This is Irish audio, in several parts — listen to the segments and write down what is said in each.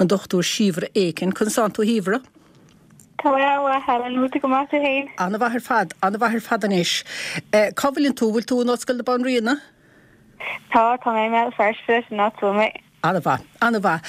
an Dr Síobhra Aiken. Conas tánn tú a Shíobhra? Tá mé an-mhaith, Helen. Bhfuil tú go maith tú féin? An-mhaith ar fad, an-mhaith ar fad anois. Cá bhfuileann tú? Bhfuil tú in Ollscoil na Banríona? Tá, tá mé i mBéal Feirste, sin áit a bhfuil mé. An-mhaith, an-mhaith.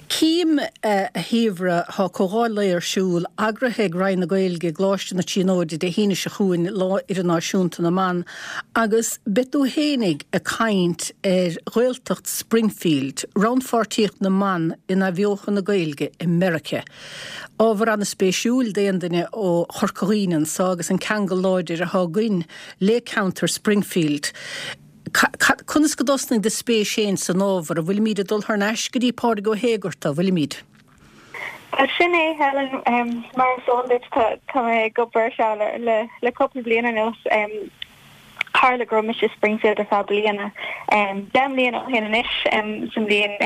Cím, a Shíobhra, tá comhdháil lae ar siúl, eagraithe ag Roinn na Gaeilge i gColáiste na Tríonóide Dé hAoine seo chugainn, Lá Idirnáisiúnta na mBan, agus beidh tú fhéinig ag caint ar Ghaeltacht Springfield, rannpháirtíocht na mban in athbheochan na Gaeilge i Meiriceá. Ábhar an-spéisiúil d'aon duine ó Chorca Dhuibhne anso agus an ceangal láidir atá againn le ceantar Springfield. Conas go dtosnaigh do spéis féin san ábhar? An bhfuilimíd ag dul thar n-ais go dtí Pádraig Ó hÉigearta, an bhfuilimíd? Bhuel, sin é, Helen. Mar is eol duit, tá mé ag obair ar seo le cúpla bliain anuas. Tharla go raibh mise i Springfield ar feadh bliana, 10 mbliana ó shin anois, sa mbliain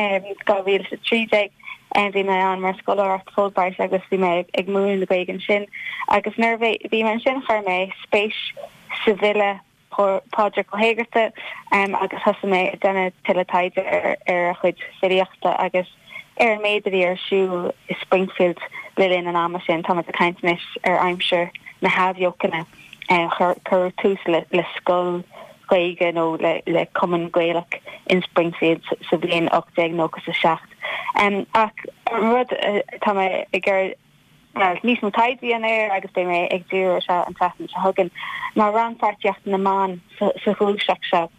2013. Bhí mé ann mar scoláireacht Fulbright agus bhí mé ag múineadh na Gaeilge ansin. Agus nuair a bhí mé ansin chuir mé spéis sa bhfile Pádraig Ó hÉigearta agus thosaigh mé ag déanamh tuilleadh taighde ar a chuid filíochta agus ar an méid a bhí ar siúl i Springfield le linn an ama sin. Táimid ag caint anois ar aimsir na hAthbheochana. Cuireadh tús le scoil Ghaeilge nó le cumann Gaelach in Springfield sa bhliain 1897. Ach an rud atá mé ag iarraidh níos mó taighde a dhéanamh air agus beidh mé ag díriú air seo an tseachtain seo chugainn, ná rannpháirtíocht na mban sa ghluaiseacht seo.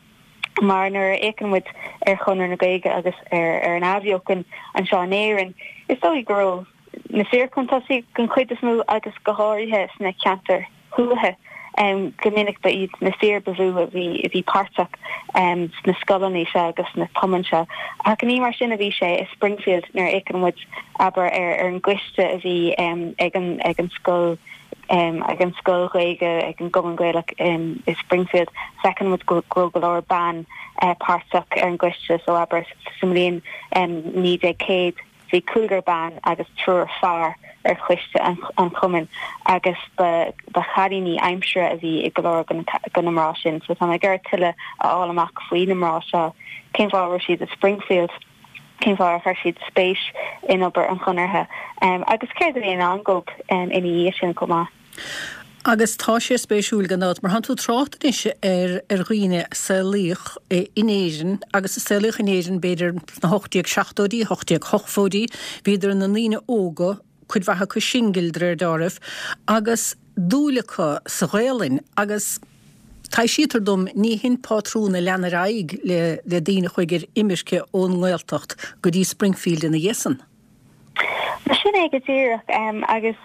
Mar nuair a fhéachann muid ar Chonradh na Gaeilge agus ar an Athbheochan anseo in Éirinn, is dóigh go raibh na fir chun tosaigh den chuid is mó agus go háirithe sna ceantair thuaithe. Go minic ba iad na fir ba mhó a bhí a bhí páirteach sna scoileanna seo agus sna cumainn seo. Ach ní mar sin a bhí sé i Springfield nuair a fhéachann muid, abair, ar an gcoiste a bhí ag an ag an scoil ag an scoil Ghaeilge, ag an gCumann Gaelach i Springfield, feiceann muid go raibh go leor ban páirteach ar an gcoiste. So, abair, sa mbliain 1900, Bhí cúigear ban agus triúr fear ar choiste an chumainn agus ba chailíní aimsire a bhí i go leor de na mná sin. So tá mé ag iarraidh tuilleadh a fháil amach faoi na mná seo, cén fáth a raibh siad i Springfield, cén fáth ar chuir siad spéis in obair an Chonartha agus céard a bhí i ndán dóibh ina dhiaidh sin chomh maith. Agus tá sé spéisiúil gan dabht, mar tánn tú ag trácht anois ar ar dhaoine a saolaíodh in Éirinn agus a saolaíodh in Éirinn b'fhéidir sna 1870idí, 1880idí, bhíodar ina ndaoine óga, cuid mhaith acu singil de réir deáraimh, agus dúil acu sa Ghaelainn agus taibhsítear dom ní hin pátrún a lean ar aghaidh le le daoine a chuaigh ar imirce ón nGaeltacht go dtí Springfield ina dhiaidh san. Mar sin é go díreach, agus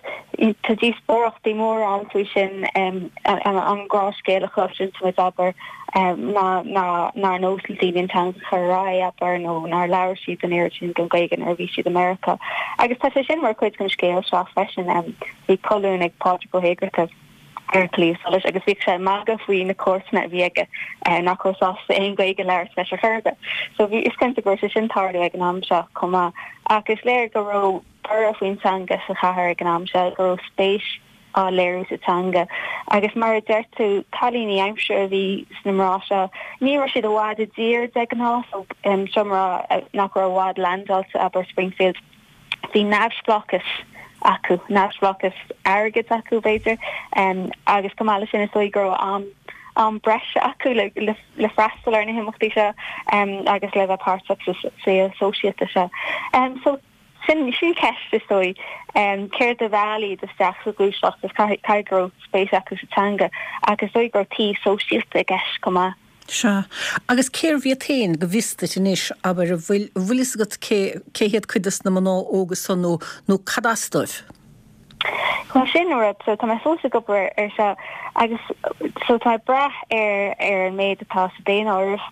tá díospóireachtaí móra ann faoi sin, an gnáthscéal a chloiseann muid, abair, ná nár nós le daoine an teanga a chur ar aghaidh, abair, nó nár labhair siad an oiread sin den Ghaeilge nuair a bhí siad i Meiriceá. Agus tá sé sin mar chuid den scéal seo freisin. Bhí colún ag Pádraig Ó hÉigearta. ar An Claidheamh Soluis agus bhíodh sé ag magadh faoi na comharsana a bhí aige nach raibh sásta aon Ghaeilge a labhairt leis ar chor ar bith. So bhí, is cinnte go raibh sé sin ag tarlú ag an am seo chomh maith. Ach is léir go raibh borradh faoin teanga sa chathair ag an am seo, go raibh spéis á léiriú sa teanga. Agus mar a deir tú, cailíní aimsire a bhí sna mná seo. Ní raibh siad i bhfad i dtír de ghnáth, so seo mná nach raibh i bhfad leaindeáilte, abair, Springfield. Bhí neamhspleáchas acu, neamhspleáchas airgid acu, b'fhéidir, agus chomh maith leis sin is dóigh go raibh am am breise acu le le freastal ar na himeachtaí seo agus le bheith páirteach sa saol sóisialta seo. So sin sin ceist is dóigh, céard a mheall iad isteach sa ghluaiseacht is caithfidh go raibh spéis acu sa teanga ach is dóigh go raibh taobh sóisialta i gceist chomh maith. Sea. Agus cérbh iad féin, go bhfios duit anois, abair, an bhfuil, an bhfuil fhios agat cé, cé hiad cuid des na mná óga san nó, nó cad as dóibh? Bhuel, sin an rud, so tá mé fós ag obair ar seo agus so tá mé ag brath ar, ar an méid atá sa daonáireamh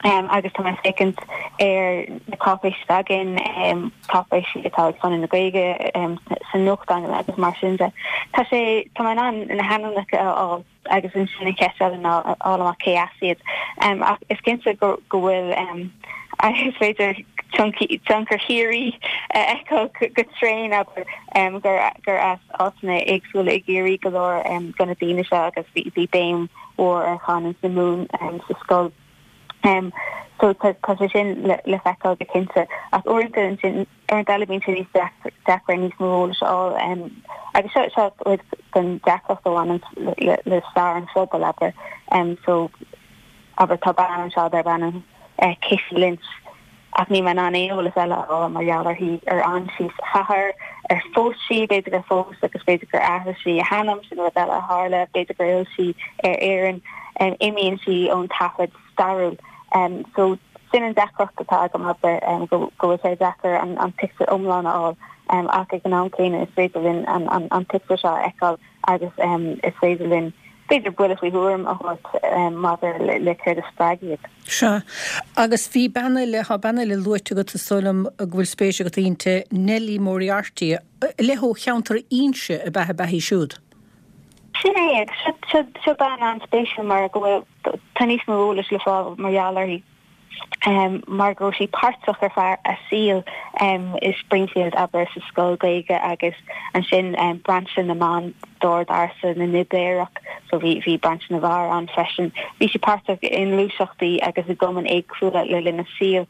um, agus tá mé ag féachaint ar na cáipéisí atá againn, um, cáipéisí atá ag Conradh na Gaeilge um, sa nuachtán agus mar sin de. Tá sé, tá mé in ann na hainmneacha a fháil. agus ansin an cheist eile ná a fháil amach cé as iad. Ach is cinnte go bhfuil, is féidir tionchar Chiarraí a fheiceáil go tréan, abair, gur as áiteanna éagsúla i gCiarraí go leor de na daoine seo agus bhí béim mhór ar chanúint na Mumhan sa scoil. So tá sé sin le feiceáil go cinnte. Ach uaireanta ansin, uaireanta eile bíonn sé níos deacra níos mó eolais a fháil. Agus seo seo cuid den deacracht a bhaineann le stair an phobail, abair. So abair tá bean anseo darb ainm Kitty Lynch. Ach níl mé in ann aon eolas eile a fháil mar gheall uirthi, ar fhan sí sa chathair, ar phós sí, b'fhéidir gur phós agus b'fhéidir gur athraigh sí a hainm, sin rud eile a tharla, b'fhéidir gur fhill sí ar Éirinn, imíonn sí ón taifead stairiúil. So sin an deacracht atá agam, abair, go bhfuil sé deacair an pictiúr iomlán a fháil ach ag an am céanna is féidir linn an pictiúr seo a fheiceáil agus is féidir linn b'fhéidir buille faoi thuairim a thabhairt maidir le céard a spreag iad. Sea. Agus bhí bean eile, tá bean eile luaite agat, is dóigh liom go bhfuil spéis agat inti, Nellie Moriarty, le ó cheantar Inse ab ea a beatha í siúd? Sin é, agus seo bean an-spéisiúil mar go bhfuil, tá níos mó eolais le fáil mar gheall uirthi. mar go raibh sí páirteach ar feadh a saoil i Springfield, abair, sa scoil Gaeilge agus ansin brainse na mban d'Ord Ársa na nOibéireach, so bhí bhí brainse na bhfear ann freisin. Bhí sí páirteach i ngluaiseachtaí agus i gcumainn éagsúla le linn a saoil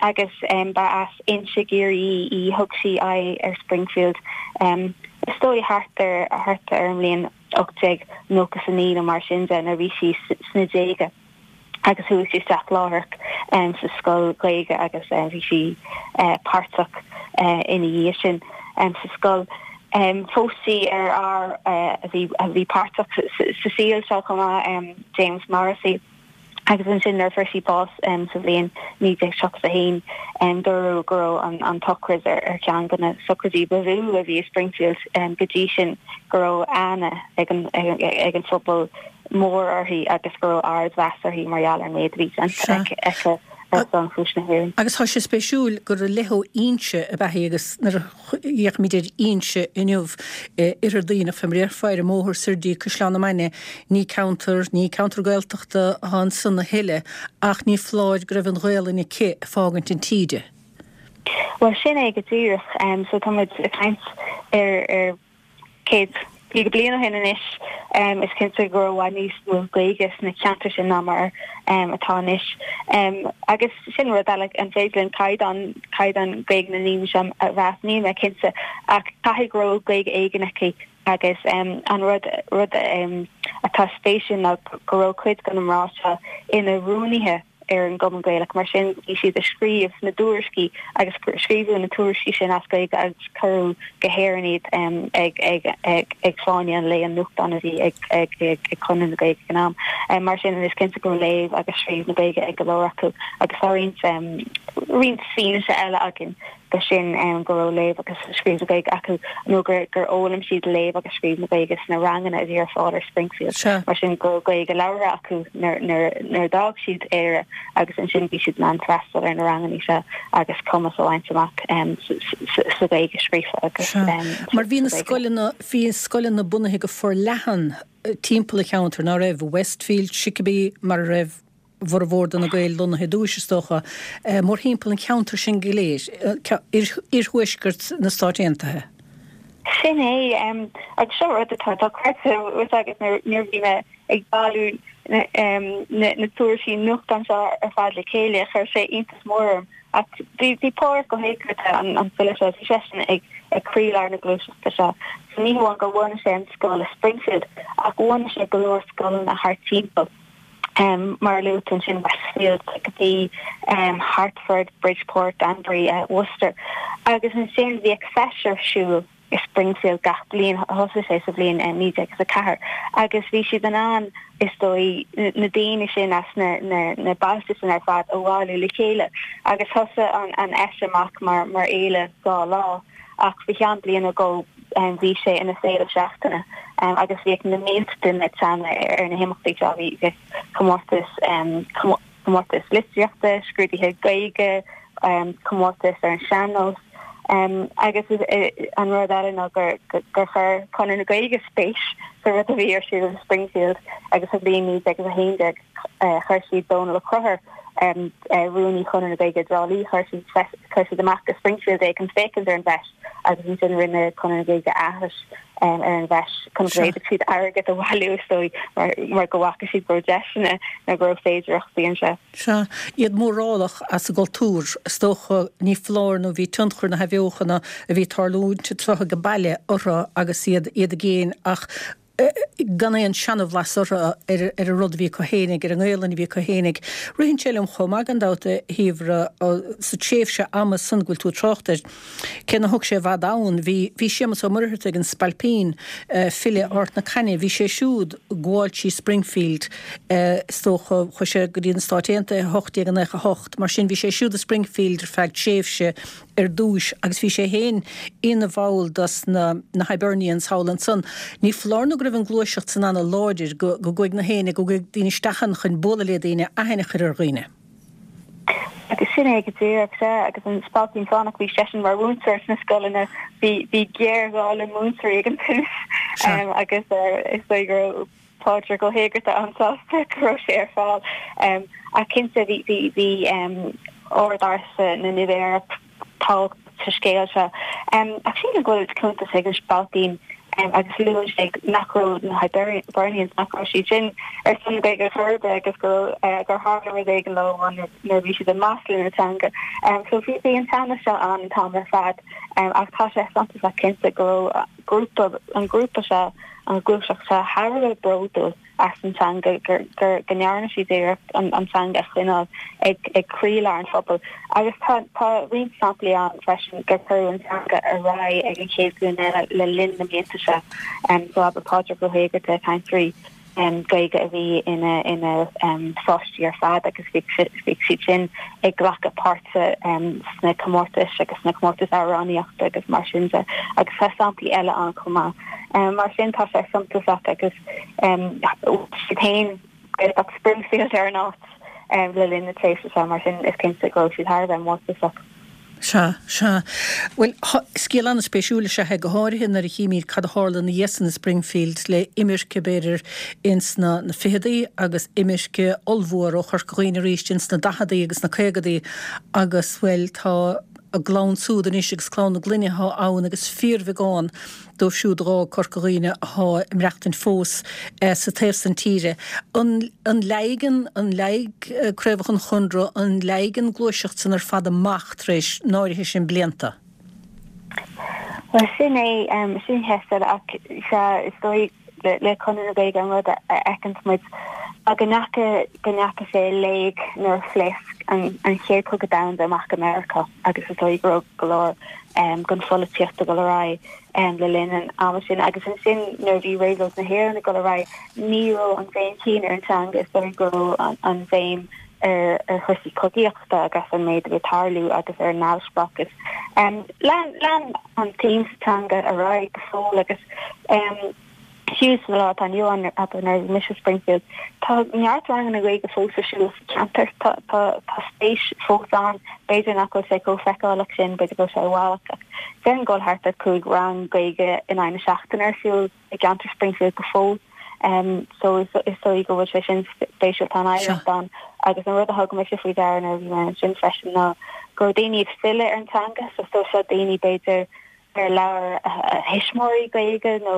agus ba as Inse i gCiarraí í. Thug sí aghaidh ar Springfield is dóigh thart ar thart ar an mbliain 1899 nó mar sin de nuair a bhí sí sna déaga. agus chuaigh sí isteach láithreach sa scoil Ghaeilge agus bhí sí páirteach ina dhiaidh sin sa scoil. Phós sí ar fhear a bhí a bhí páirteach sa saol seo chomh maith, James Morrissey, agus ansin nuair a fuair sí bás sa bhliain 1931 dúradh go raibh an tsochraid ar cheann de na sochraidí ba mhó a bhí i Springfield go dtí sin, go raibh aithne ag an phobal mór uirthi agus go raibh ardmheas uirthi mar gheall ar an méid a bhí déanta aici ar son chúis na hÉireann. Agus tá sé spéisiúil gur i leith ó Inse ab ea í agus nuair a fhéachaimid ar Inse inniu, Oirthear Duibhneach, fé mar a déarfá, ar an mbóthar soir dtí Caisleán na Mainge, ní ceantar, ní ceantar Gaeltachta atá ansan a thuilleadh ach ní foláir go raibh an Ghaelainn aici ag fágaint an tí di. Bhuel, sin é go díreach. So tá muid ag caint ar, ar. 150 bliain ó shin anois, is cinnte go raibh i bhfad níos mó Gaeilge sna ceantair sin ná mar atá anois. Agus sin rud eile, an féidir linn caighdeán, caighdeán Gaeilge na ndaoine seo a mheas? Níl mé cinnte, ach caithfidh go raibh Gaeilge éigin aici agus an rud, rud atá spéisiúil ná go raibh cuid de na mná seo ina rúnaithe ar an gCumann Gaelach. Mar sin, bhí siad ag scríobh na dtuairiscí agus scríobhadh na tuairiscí sin as Gaeilge agus cuireadh go hÉirinn iad ag Fáinne an Lae, an nuachtán a bhí ag Conradh na Gaeilge ag an am. Mar sin, is cinnte go raibh léamh agus scríobh na Gaeilge ag go leor acu agus tá roinnt roinnt fianaise eile againn de sin go raibh léamh agus scríobh na Gaeilge acu nó gur fhoghlaim siad léamh agus scríobh na Gaeilge sna ranganna a bhí ar fáil ar Springfield. Mar sin go raibh Gaeilge labhartha acu nuair a d'fhág siad Éire agus ansin bhí siad in ann freastal ar na ranganna seo agus cumas a bhaint amach sa Ghaeilge scríofa agus sa Ghaeilge. Mar bhí na scoileanna, bhí scoileanna bunaithe go forleathan timpeall an cheantair, ná raibh? Westfield, Chicopee, mar a raibh bhformhór de na Gaeil lonnaithe i dtúis, is dócha, mórthimpeall an cheantair sin go léir, iarthuaisceart na Stát Aontaithe. Sin é, agus seo rud atá dochreidte agus nuair a bhí mé ag bailiú na tuairiscí nuachtáin seo ar fad le chéile, chuir sé iontas mór orm. Ach bhí Pádraig Ó hÉigeartaigh, an file seo, bhí seisean ag croílár na gluaiseachta seo. So ní hamháin gur bhunaigh sé an scoil i Springfield, ach bhunaigh sé go leor scoileanna thart timpeall. Mar a luaigh tú ansin, Westfield, Chicopee, Hartford, Bridgeport, Danbury, Worcester. Agus ansin bhíodh feis ar siúl i Springfield gach bliain, thosaigh sé sa bhliain 1904, agus bhí siad in ann, is dóigh, na daoine sin as na bailte sin ar fad a bhailiú le chéile. Agus thosaigh an fheis amach mar fhéile dá lá. Ach faoi cheann bliain nó dhó bhí sé ina féile seachtaine agus bhíodh na mílte duine ag teannadh ar na himeachtaí seo. Bhí comórtais, comórtais litríochta, scrúduithe Gaeilge, comórtais ar an sean-nós agus an rud eile ná gur chuir Conradh na Gaeilge spéis sa rud a bhí ar siúl i Springfield agus sa bhliain 1911 chuir siad Dónal Ó Conchúir. Rúnaí Chonradh na Gaeilge i dTrá Lí, chuir siad chuir siad amach go Springfield é chun féachaint ar an bhfeis agus ansin rinne Conradh na Gaeilge aithris ar an bhfeis chun go bhféadfadh siad airgead a bhailiú is dóigh mar mar go bhfaca siad go raibh deiseanna nó go raibh féidearthachtaí anseo. Sea, iad mórálach as a gcultúr, is dócha, ní foláir nó bhí tionchar na hathbheochana a bhí ag tarlúint anseo age baile orthu agus iad iad i gcéin ach gan aon seanabhlas orthu ar ar an rud a bhí acu fhéinig, ar an nGaelainn a bhí acu fhéinig. Ritheann sé liom chomh maith gan dabht, a Shíobhra, sa tréimhse ama san go bhfuil tú ag trácht air, cé nár thug sé i bhfad ann, bhí bhí Séamus Ó Muircheartaigh, an Spailpín, file Ard na Caithne, bhí sé siúd ag gabháil trí Springfield, is dócha, chuaigh sé go dtí na Stáit Aontaithe i 1898, mar sin bhí sé siúd i Springfield ar feadh tréimhse ar dtúis agus bhí sé féin ina bhall dos na na Hibernians thall ansan. Ní foláir nó go raibh an gluaiseacht san ana láidir, go go gcuaigh na héinne, go gcuaigh daoine isteach ann chun bualadh le daoine, aithne a chur ar dhaoine. Agus sin é go díreach, sea, agus an Spailpín Fánach, bhí seisean mar mhúinteoir sna scoileanna, bhí bhí géarghá le múinteoirí ag an tús agus is dóigh go raibh Pádraig Ó hÉigeartaigh an-sásta go raibh sé ar fáil. Ach cinnte bhí bhí bhí ord ársa na nOibéireach tábhachtach sa scéal seo. Ach sílim go bhfuil cuntas ag an Spailpín agus luann sé nach raibh na Hibernians, nach raibh siad sin ar son na Gaeilge chor ar bith agus go raibh gur tharla rud éigin leo nuair a bhí siad ag maslú na teanga. So bhí bhí an teannas seo ann an t-am ar fad ach tá sé suntasach cinnte go raibh grúpa an grúpa seo an ghluaiseacht seo thar a bheith bródúil as an teanga, gur, gur, go ndearna siad iarracht an, an teanga a choinneáil ag, ag croílár an phobail. Agus tá, tá roinnt samplaí ann freisin gur cuireadh an teanga ar aghaidh ag an chéad ghlúin eile le linn na mblianta seo. So abair Pádraig Ó hÉigeartaigh, cainteoirí Gaeilge a bhí ina ina pháistí ar fad agus bhí siad sin ag glacadh páirte sna comórtais agus sna comórtais amhránaíochta agus mar sin de agus tá samplaí eile ann chomh maith. Mar sin tá sé suntasach agus siad féin Gaeltacht Springfield ar an áit le linn na tréimhse seo mar sin is cinnte go raibh siad thar a bheith mórtasach. Sea, sea. Bhuel, scéal an-spéisiúil is ea é, go háirithe nuair a chímid cad a tharla ina dhiaidh san i Springfield le imirce, b'fhéidir, ins na na ficheadaí agus imirce ollmhór ó Chorca Dhuibhne arís ins na daicheadaí agus na caogadaí agus, bhuel, tá a gclann súd anois agus clann na gclainne atá ann agus fíorbheagán dóibh siúd a dh'fhág Corca Dhuibhne athá ag maireachtaint fós sa taobh san tíre. An an leáigh an leáigh craobhacha an Chonradh, an leáigh an gluaiseacht san ar fad amach tar éis an áirithe sin blianta? Bhuel, sin é, sin ceist eile ach sea, is dóigh le Conradh na Gaeilge an rud a fheiceanns muid ná go ndeacha, go ndeacha sé i léig nuair a phléasc an an Chéad Chogadh Domhanda amach i Meiriceá agus is dóigh go raibh go leor den pholaitíocht ag dul ar aghaidh le linn an ama sin agus ansin nuair a bhí Réabhlóid na hÉireann ag dul ar aghaidh ní raibh an bhéim chéanna ar an teanga, is dóigh go raibh an bhéim ar ar chúrsaí cogaíochta agus an méid a bhí ag tarlú agus ar an neamhspleáchas. Lean lean an tsuim sa teanga ar aghaidh go fóill agus fiú sa lá atá inniu ann, abair nuair a bhí mise i Springfield, tá neart ranganna Gaeilge fós ar siúl sa cheantar. Tá tá tá spéis fós ann. B'fhéidir nach bhfuil sé chomh feiceálach sin, b'fhéidir go bhfuil sé i bhfalach ach déarfainn go bhfuil thart ar 5 rang Gaeilge in aghaidh na seachtaine ar siúl i gceantar Springfield go fóill. So is is dóigh go bhfuil sé sin spéisiúil, tá an oidhreacht ann agus an rud a thug mise faoi deara nuair a bhí mé ansin freisin ná go raibh daoine ag filleadh ar an teanga, so so seo daoine b'fhéidir ar labhair a thuismitheoirí Gaeilge nó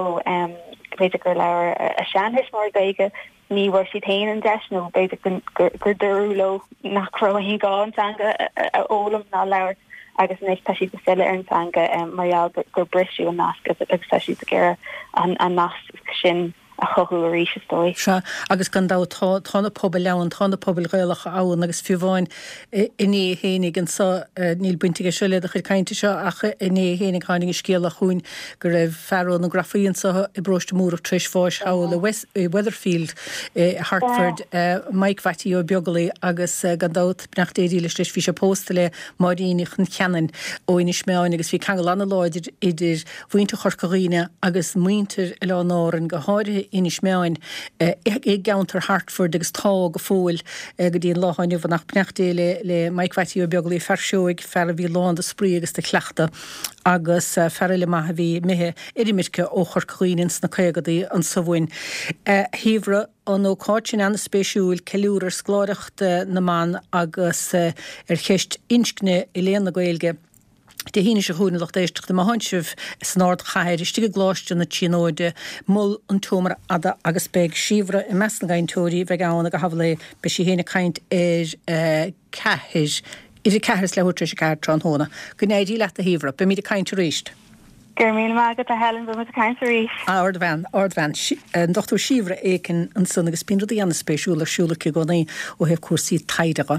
b'fhéidir gur labhair a seantuismitheoirí Gaeilge, ní bhfuair siad féin an deis nó b'fhéidir gur dúradh leo nach raibh aon ghá an teanga a fhoghlaim ná a labhairt agus anois tá siad ag filleadh ar an teanga mar gheall gur briseadh an nasc agus tá siad ag iarraidh an nasc sin a chothú arís, is dóigh. Sea, agus gan dabht tá, tá na pobail ann, tá na pobail Ghaelacha ann agus fiú amháin inné fhéinig anso, níl baint aige seo le do chuid cainte seo ach inné fhéinig tháinig an scéala chugainn go raibh fear ó na Grafaí anso i bparóiste Múrach tar éis bháis thall i West, i Weatherfield i Hartford, Mike Mhattie Ó Beaglaoi agus gan dabht beannacht Dé dílis leis bhí sé pósta le Máirín Uí Choncheanainn ó Inis Meáin agus bhí ceangal an-láidir idir mhuintir Chorca Dhuibhne agus muintir Oileáin Árann, go háirithe. Inis Meáin i gceantar Hartford agus tá go fóill go dtí an lá atá inniu ann. Ach beannacht Dé le le Mike Mhattie Ó Beaglaoich, fear seoigh, fear a bhí lán de spraoi agus de chleachtadh agus fear eile maith a bhí imithe ar imirce ó Chorca Dhuibhne ins na caogadaí anso uainn. A Shíobhra, an ócáid sin an-spéisiúil, ceiliúradh ar scoláireacht na mban agus ar cheist inscne i léann na Gaeilge. Dé hAoine seo chugainn, a lucht éisteachta, má thánn sibh san ardchathair, istigh i gColáiste na Tríonóide, Mol an tSeomra Fhada agus beidh Síobhra i measc na gcainteoirí a bheidh ann ag a habhal é. Beidh sí féin ag caint ar a ceathair, idir a ceathair is leathuair tar éis a ceathair tráthnóna. Go n-éirí leat a Shíobhra. Beimid ag caint arís. Go raibh míle maith agat a Helen, beimid ag caint arís. Ardbhean, ardbhean. An Dr Síobhra Aiken ansan agus bíonn rudaí an-spéisiúla ar siúl aici i gcónaí ó thaobh cúrsaí taighde dhe.